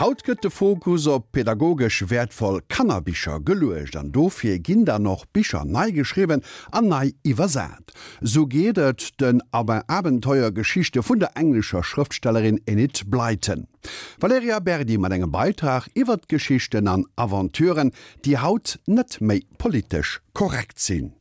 Haut gëtt de Fokus op pedagogesch wäertvoll Kannerbicher geluecht an dofir ginn dann och Bicher nei geschriwwen an nei iwwersat. Sou geet et den Abenteuergeschichte vun der englescher Schrëftstellerin Enid Blyton. D'Valerija Berdi mat engem Beitrag iwwert Geschichten an Aventuren, déi haut net méi politesch korrekt sinn.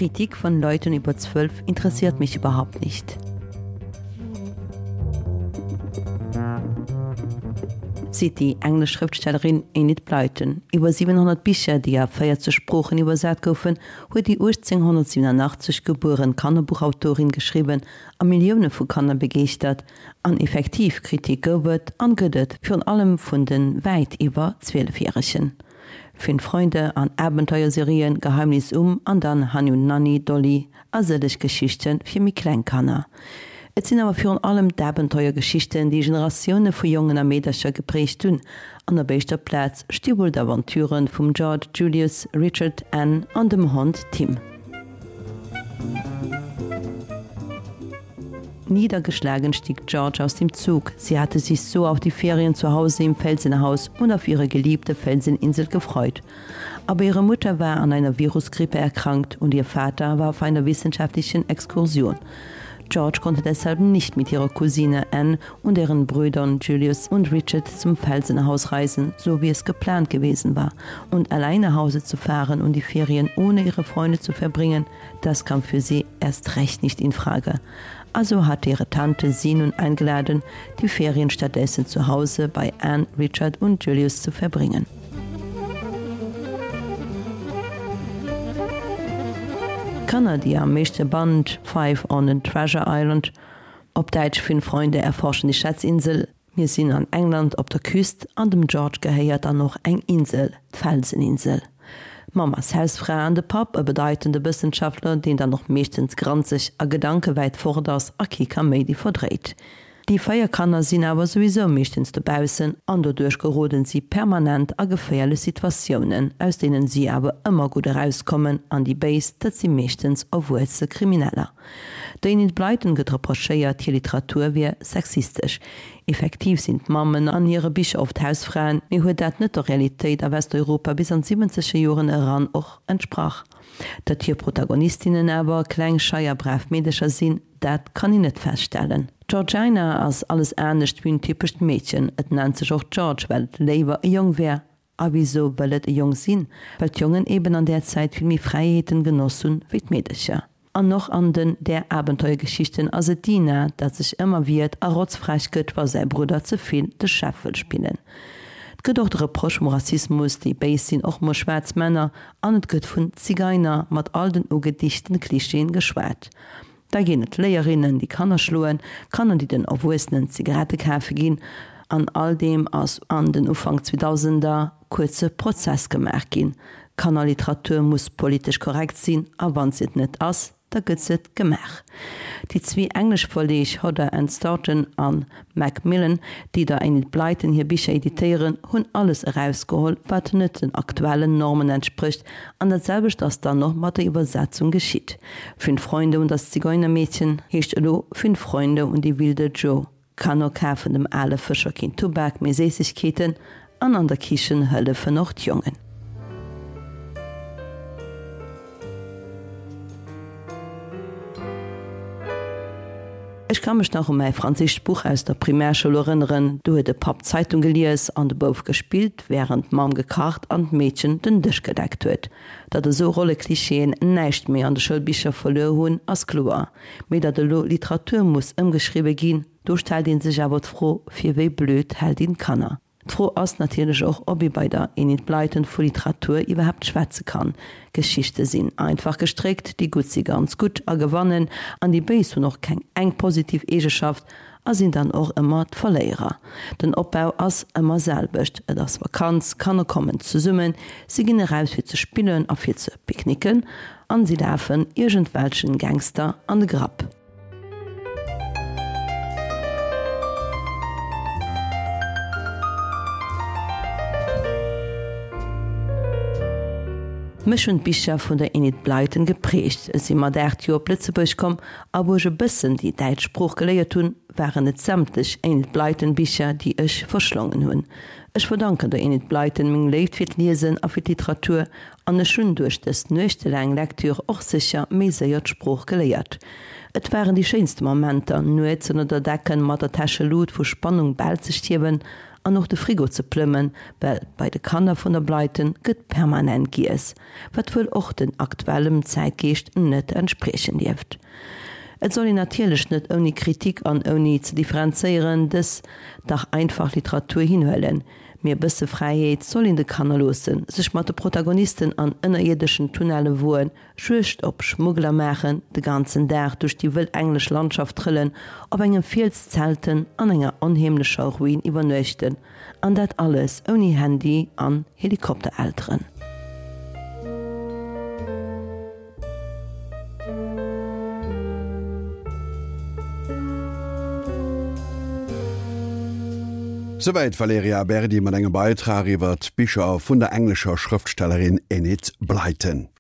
Kritik von Leuten über 12 interessiert mich überhaupt nicht. Seet déi englesch Schrëftstellerin Enid Blyton. Iwwer 700 Bicher, déi a 40 Sproochen iwwersat goufen, huet déi 1887 gebueren Kannerbuchautorin geschriwwen a Millioune vu Kanner begeeschtert. An effektiv, Kritik gouf et an gëtt et, virun allem vun de wäit iwwer 12 Järegen. Fünf Freunde an Abenteuerserien, Geheimnis um an dann Hanni und Nanni, Dolly a sëlleg Geschichte fir méi kleng Kanner. Et sinn awer virun allem d'Abenteuergeschichten, déi Generatioune vu Jongen a Meedercher geprägt hunn. An op éischter Plaz sti wuel d'Aventuren vum George, Julius, Richard, Anne an dem Hond Tim. Niedergeschlagen stieg George aus dem Zug. Sie hatte sich so auf die Ferien zu Hause im Felsenhaus und auf ihre geliebte Felseninsel gefreut. Aber ihre Mutter war an einer Virusgrippe erkrankt und ihr Vater war auf einer wissenschaftlichen Exkursion. George konnte deshalb nicht mit ihrer Cousine Anne und ihren Brüdern Julius und Richard zum Felsenhaus reisen, so wie es geplant gewesen war. Und allein nach Hause zu fahren und die Ferien ohne ihre Freunde zu verbringen, das kam für sie erst recht nicht in Frage. Also hatte ihre Tante sie nun eingeladen, die Ferien stattdessen zu Hause bei Anne, Richard und Julius zu verbringen. Kanner, déi am meeschte Band Five on the Treasure Island, op Däitsch Fünf Freunde erforschen die Schatzinsel, Mir sinn an England op der Küst an dem George gehéiert dann och eng Insel, d'Felseninsel. D'Mamm ass Hausfra an de Papp e bedeitende Wëssenschaftler, deen dann och meeschtens granzeg a Gedanke wäit fort ass a kee Kaméidi verdréit. Déi 4 Kanner sinn awer souwisou meeschtens dobaussen an doduerch geroden si permanent a geféierlech Situatiounen, aus deenen si awer ëmmer gutt erauskommen an déi Béis, dat si meeschtens erwuesse Krimineller. Der Enid Blyton gëtt reprochéiert, hir Literatur wier sexistesch. Effektiv sinn d'Mammen an hire Bicher oft Hausfraen, mee huet dat net der Realitéit a Westeuropa bis an d'siwwenzeger Joren eran och entsprach? Datt hir Protagonistinnen awer kleng, schei a brav Meedercher sinn, Dat kann een net feststellen. D'Georgina ass alles anescht wéi en typescht Meedchen. Et nennt sech och George, well et léiwer e Jong wär. A wisou wëll et e Jong sinn? Well d'Jongen eben an där Zäit vill méi Fräiheeten genoss hunn wéi d'Meedercher. An och an den där Abenteuergeschichten ass et d'Dina, dat sech ëmmer wiert a rotzfrech gëtt, wa säi Brudder ze vill de Chef wëll spillen. Et gëtt och de Reproche vum Rassismus, déi Béis sinn och mol schwaarz Männer, an et gëtt vun Zigeiner mat all den ugedichten Klischeeën geschwat. Da ginn et Léierinnen, déi Kanner schloen, Kanner, déi den Erwuessenen Zigarette kafe ginn. An all deem ass an den Ufank Zweedausender kuerze Prozess gemaach ginn. Kannerliteratur muss politesch korrekt sinn, a wann se et net ass, da gëtt se et gemaach. Déi zwee englesch Verleeg Hodder and Stoughton a Macmillan, déi der Enid Blyton hir Bicher editéieren, hunn alles erausgeholl, wat net den aktuellen Normen entsprécht, an dat selwecht ass dann och mat der Iwwersetzung geschitt. Fünf Freunde und das Zigeunermädchen heescht elo Fünf Freunde und die wilde Joe. Kanner kafen dem ale Fëscher keen Tubak, mee Séissegkeeten, an an der Kichen hëllefen och d'Jongen. Ech ka mech nach u mäi franséischt Buch aus der Primärschoul erënneren. Do huet de Papp d'Zeitung gelies an de Bouf gespillt, wärend d'Mamm gekacht an d'Meedchen den Dësch gedeckt huet. Datt esou Rolleklischeeën näischt méi an de Schoulbicher verluer hunn, ass kloer. Mee datt elo Literatur muss ëmgeschriwwe ginn, do stellt ee sech awer d'Fro, fir wéi blöd hält een d'Kanner? D'Fro ass natierlech och, ob ee bei der Enid Blyton vu Literatur iwwerhaapt schwätze kann. Geschichte sinn einfach gestréckt, déi Gutt si ganz gutt a gewannen, an déi Béis hunn och keng eng positiv Eegeschaft a sinn dann och ëmmer d'Verléierer. Den Opbau ass ëmmer selwecht, et ass Vakanz, Kanner kommen zesummen, si ginn eraus fir ze spillen a fir ze picknicken an si lafen iergendwelchen Gangster an de Grapp. Mech hunn d'Bicher vun der Enid Blyton geprägt. Ech si mat 8 Joer op Lëtzebuerg komm a wou ech e bëssen déi däitsch Sprooch geléiert hunn, waren et sämtlech Enid Blyton Bicher, déi ech verschlongen hunn. Ech verdanken der Enid Blyton meng Léift fir d'Liesen a fir d'Literatur an ech hunn duerch dës nuechtelaang Lektüre och sécher méi séier d'Sprooch geléiert. Et waren déi schéinste Momenter, nuets ënner der Decken mat der Täschelut vu Spannung bal ze stierwen An och de Frigo ze plëmmen, well bei de Kanner vun der Blyton gëtt permanent giess, wat wuel och den aktuellem Zäitgeescht net entspriechen dierft. Et soll een natierlech net ouni Kritik an ouni ze differenzéieren dës dach einfach Literatur hinhuelen, mee e bësse Fräiheet soll een de Kanner loossen, sech mat de Protagonisten an ënnerierdeschen Tunnelle woen, Juegd op Schmuggler maachen, de ganzen Dag duerch déi wëll englesch Landschaft trëllen, op engem Fiels zelten, an enger onheemlecher Ruin iwwernuechten, an dat alles ouni Handy an Helikopterelteren. Souwäit d'Valerija Berdi mat engem Beitrag iwwer d'Bicher vun der englescher Schrëftstellerin Enid Blyton.